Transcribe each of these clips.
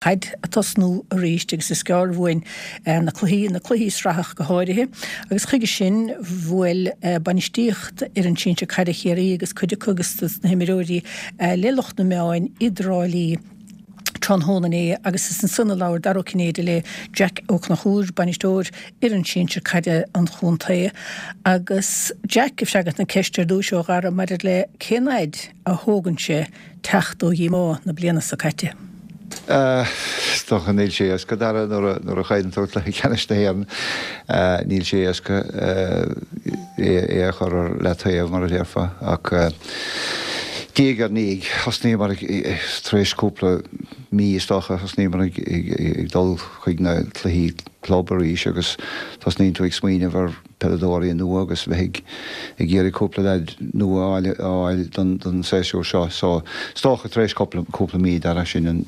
Caid ag tosnú arís agus is gearr uainn na cluichí, na cluichí sraithe ach go háirithe, agus chuige sin bhuail bainistíocht fhoireann sinsir caide Chiarraí agus cuid acu agus dos na himreoirí le lucht na meáin i dTrá Lí tráthnóna inné agus is ansan a labhair Dara Ó Cinnéide le Jack Ó Conchúir, bainisteoir fhoireann sinsir caide an chontae. Agus Jack ag freagairt na ceiste ar dtúis ó Dhara maidir le cén fhaid a thógann sé teacht ó dhíomá na bliana seo caite. Is dócha níl sé éasca, Dara, nuair a chailleann tú cluiche ceannais na hÉireann, níl sé éasca é a chur ar leataobh, mar a déarfá. Ach diaidh ar ndiaidh, thosnaíomar tar éis cúpla mí, is dócha, thosnaíomar ag dul chuig na cluichí club arís agus tosnaíonn tú ag smaoineamh ar peileadóirí nua agus bheith ag iarraidh cúpla leaid nua a fháil don séasúr seo. So, is dócha tar éis cúpla mí, Dara, sin an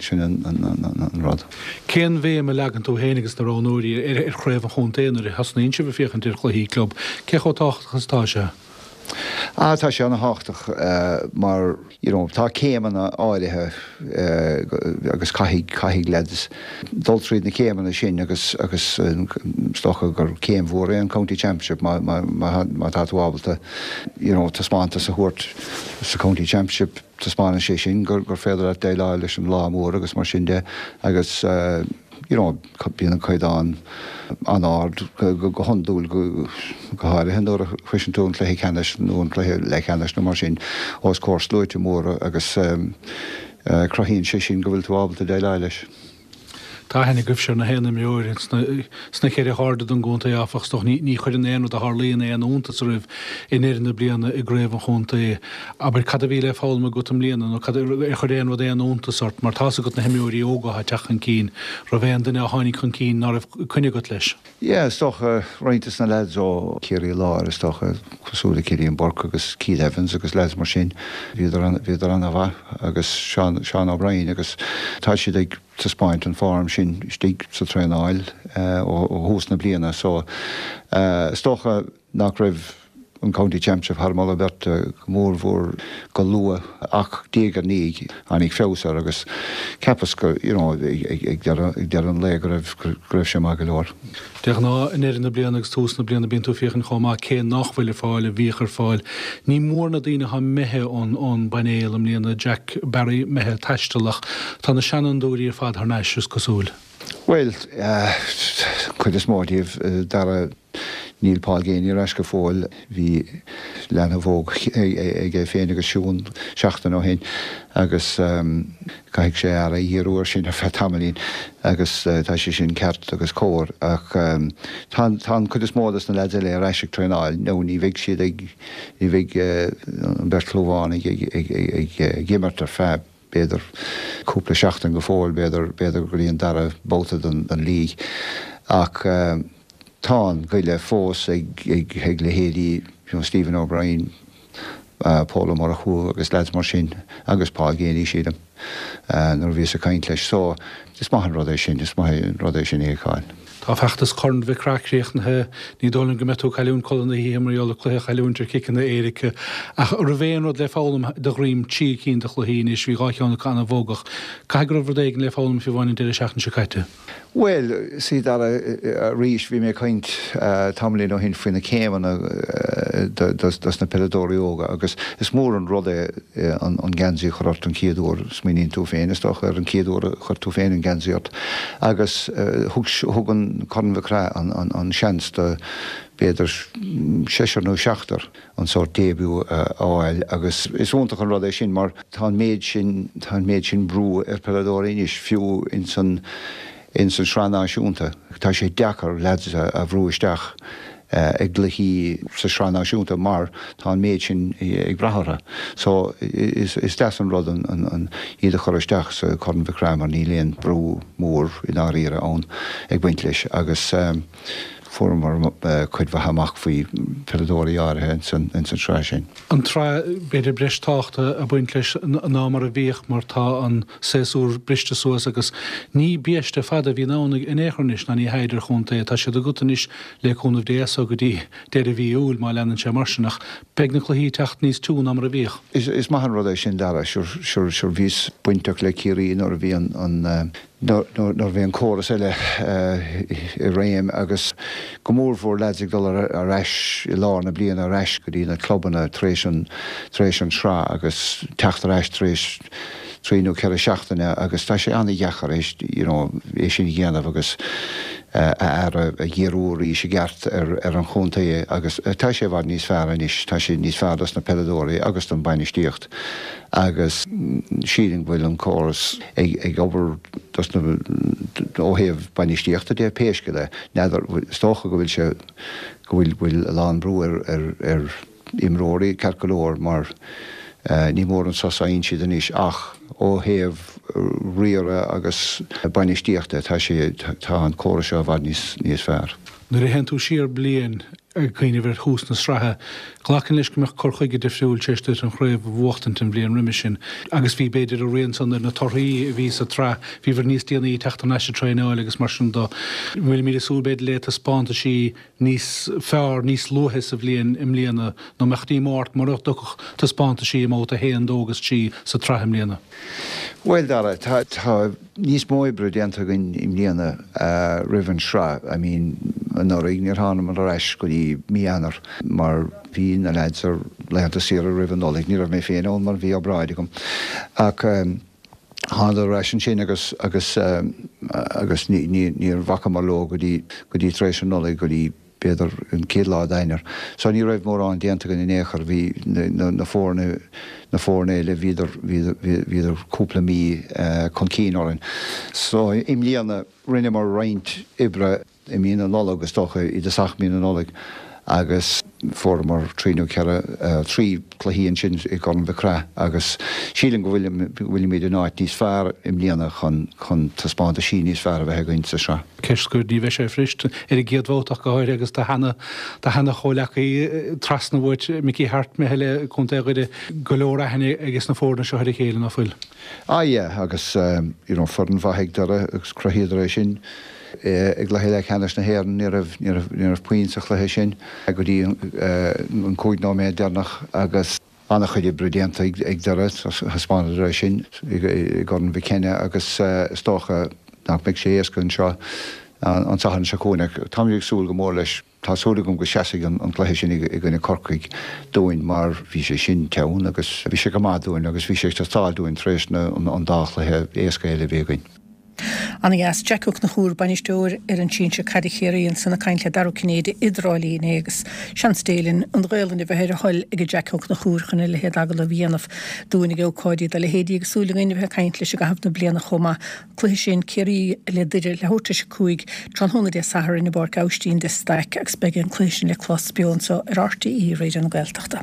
rud. Cén bhéim a leagann tú féin agus na roghnóirí ar chraobh an chontae nuair a thosnaíonn sibh ag féachaint ar chluichí club? Cé chomh tábhachtach is atá sé? Ah, tá sé ana-thábhachtach mar, you know, tá céimeanna áirithe agus caithfidh, caithfidh leaids dul tríd na céimeanna sin agus, agus is dócha gur céim mhór é an County Championship má, má, má, má tá tú ábalta, you know, taispeántas a thabhairt sa County Championship, taispeánann sé sin gur, gur féidir leat déileáil leis an lá mór agus mar sin de agus, you know, Bíonn an caighdeán an-ard go hiondúil, go háirithe nuair a shroiseann tú an cluiche ceannais nó an cluiche leathcheannais nó mar sin os comhair sluaite móra agus cruthaíonn sé sin go bhfuil tú ábalta déileáil leis. Tá aithne agaibhse ar na haon imreoir sna ceithre hairde den gcontae, áfach, is dócha. Ní chuireann aon rud a tharlaíonn aon iontas oraibh i ndeireadh na bliana i gcraobh an chontae. Abair, cad a bhí le foghlaim agat i mbliana nó cad, ar chuir aon rud aon iontas ort? Mar tá's agat na himreoirí óga atá ag teacht chun cinn, raibh aon duine a tháinig chun cinn ná raibh coinne agat leis? Yeah, is dócha, roinnt des na lads ó Chiarraí Láir, is dócha, cosúil le Cillian Burke agus Keith Evans agus lads mar sin, bhíodar, bhíodar ana-mhaith agus Seán, Seán O'Brien agus tá siad ag taispeáint an form sin istigh sa traenáil ó thús na bliana so is dócha nach raibh an County Championship thar moladh beirte go mór mhór go luath ach diaidh ar ndiaidh tháinig feabhas air agus cheapas go you know ag deireadh an lae go raibh go raibh sé maith go leor. De ghnáth i ndeireadh na bliana agus tús na bliana bíonn tú ag féachaint chomh maith cé nach bhfuil ar fáil a bhíodh ar fáil. Ní mór na daoine atá imithe ón ón bpainéal i mbliana, Jack Barry imithe ag taisteal ach tá na seanfhondúirí ar fad thar n-ais is cosúil. Bhuel, cuid is mó díobh, Dara. Níl Paul Geaney ar ais go fóill. Bhí leanbh óg aige féin agus Siún seachtain ó shin agus caithfidh sé aire a dhíriú air sin ar feadh tamaillín agus tá sé sin ceart agus cóir ach tá an cuid is mó des na leaids eile ar ais ag traenáil nó ní bheidh siad ag, ní bheidh an bheirt Chlúmhánaigh ag imirt ar feadh b'fhéidir cúpla seachtain go fóill, b'fhéidir, b'fhéidir go dtí an dara babhta den league. Ach tá an goile fós ag, ag, ag leithéidí, you know, Stephen O'Brien, Pól Ó Murchú agus leaids mar sin, agus Paul Geaney, sílim, nuair a bhíos ag caint leis. So, is maith an rud é sin, is maith an rud é sin a fheiceáil. Tá feachtas Chorn Mhic Craith críochnaithe. Ní dóigh liom go mbeidh tú ag cailliúint codladh na hoíche mar gheall ar cluiche a chailliúint ar chiceanna éirice. Ach an raibh aon rud le foghlaim de dhroim trí cinn de chluichí anois, bhí 2 cheann acu an-bhogach. Caithfidh go raibh rud éigin le foghlaim fiú amháin an deireadh seachtaine seo caite. Bhuel, sea, Dara, arís, bhí mé ag caint tamaillín ó shin faoi na céimeanna dos na peileadóirí óga agus is mór an rud é an geansaí a chur ort an chéad uair. Smaoiníonn tú féin, is dócha, ar an chéad uair a chuir tú féin an geansaí ort agus thug thug an Corn Mhic Craith an seans do b'fhéidir seisear nó seachtar an sórt début a fháil agus is iontach an rud é sin mar tá an méid sin tá an méid sin brú ar peileadóirí anois fiú ins an ins an Sraith Náisiúnta. Tá sé deacair leaids a bhrú isteach i gcluichí sa Sraith Náisiúnta mar tá an méid sin ag brath orthu. So is deas an rud an iad a chur isteach sa Corn Mhic Craith mar níl aon brú mór i ndáiríre ann ag baint leis agus fuaireamar cuid mhaith amach faoi pheileadóirí áirithe ins an tsraith sin. An tsraith, b'fhéidir breis tábhachta ag baint leis ná mar a bhíodh mar tá an séasúr briste suas agus ní biaiste fada a bhíonn ann in aon chor anois ná ní hea idir chontae. Tá siad agat anois le cúnamh Dé as so go dtí deireadh mhí Iúil má leanann sé mar sin ach beidh na cluichí ag teacht níos tiú ná mar a bhíodh. Is maith an rud é sin Dara, sure bhíos bainteach le Ciarraí nuair a bhí an. Nuair a bhí an córas eile i réim agus go mórmhór leaids ag dul ar ais i lár na bliana ar ais go dtí na clubanna tar éis an tar éis an sraith agus teacht ar ais tar éis trí nó 4 seachtaine agus tá sé an-dheacair é you know é sin a dhéanamh agus a aire a dhíriú arís i gceart ar ar an chontae agus tá sé i bhfad níos fearr anois, tá sé níos fearr dos na peileadóirí agus don bainistíocht. agus sílim go bhfuil an córas ag obair dos na, ó thaobh bainistíochta de, pé scéal é. N'fheadar, is dócha go bhfuil sé, go bhfuil, bhfuil a lán brú ar, ar, ar imreoirí ceart go leor mar ní mór an sos a fhaigheann siad anois ach ó thaobh riaradh agus bainistíochta tá sé, tá an córas seo i bhfad níos, níos fearr. Nuair a théann tú siar bliain, Ag cuimhneamh ar thús na sraithe, glacaim leis go mbeadh cur chuige difriúil tar éis duit an chraobh a bhuachtaint an bhliain roimis sin agus bhí, b'fhéidir, a rian san ar na torthaí a bhí sa tsraith. Bhíobhair níos déanaí ag teacht thar n-ais ag traenáil agus mar sin de. Bhfuilimid ag súil, b'fhéidir, le taispeántaisí níos fearr níos luaithe sa bhliain i mbliana nó mbeadh díomá ort mura dtiocfadh taispeántaisí i mbabhta 1, 2 agus 3 sa tsraith i mbliana? Bhuel, Dara, tá, tá. níos mó oibre déanta againn i mbliana roimh an sraith. I mean, anuraidh níor thánamar ar ais go dtí mí Eanáir mar bhí na leaids ar laethanta saoire roimh an Nollaig. Ní raibh mé féin ann mar bhí obráid agam. Ach thánadar ar ais ansin agus agus agus ní ní níor bhacamar leo go dtí go dtí tar éis an Nollaig go dtí b'fhéidir an chéad lá d'Eanáir. So ní raibh mórán déanta againn in aon chor. Bhí na foirne, na foirne eile, bhíodar, bhíodar cúpla mí chun cinn orainn. So i mbliana rinneamar roinnt oibre i mí na Nollag, is dócha, i dtosach mí na Nollag agus fuaireamar trí nó ceithre, trí cluichí ansin i gCorn Mhic Craith agus sílim go bhfuilimid in áit níos fearr i mbliana chun, chun taispeántaisí níos fearr a bheith againn sa sraith. Ceist scoir, ní bheidh sé fuirist ar an gcéad bhabhta ach go háirithe agus do sheana, do sheana chomhleacaí trasna uait, Mickey Harte, imithe le Contae Dhoire, go leor aithne ages na foirne seo ar a chéile, ná fuil? Ah yeah, agus you know foireann mhaith ag Doire agus chruthaíodar é sin i gcluiche leathcheannais na hÉireann, ní raibh, ní raibh, ní raibh puinn sa chluiche sin go dtí an 5 nóiméad deireanach agus. An-chuid oibre déanta ag Doire, thaispeánadar é sin i gCorn Mhic Cionnaith agus is dócha nach mbeidh sé éasca anseo an Satharn seo chugainn ach táimid ag súil go mór leis. Tá súil agam go seasfaidh an cluiche sin i gcoinne Corcaigh dúinn mar bhí sé sin teann agus bhí sé go maith dúinn agus bhí sé ag teastáil dúinn tar éis an dá chluiche éasca eile a bhí againn. Ana-dheas. Jack Ó Conchúir, bainisteoir fhoireann sinsir caide Chiarraí ansan ag caint le Dara Ó Cinnéide i dTrá Lí inné agus seans Dé linn an Ghaolainn a bheith ar a thoil ag Jack Ó Conchúir chun a leithéid agallamh a dhéanamh dúinn ag ócáidí dá leithéidí agus súil againn a bheith ag caint leis i gcaitheamh na bliana chomh maith. Cluiche sin Ciarraí le Doire leathuair tar éis 5 tráthnóna Dé Sathairn i bPáirc Aibhistín de Staic agus beidh an cluiche sin le clos beo anseo ar RTÉ Raidió na Gaeltachta.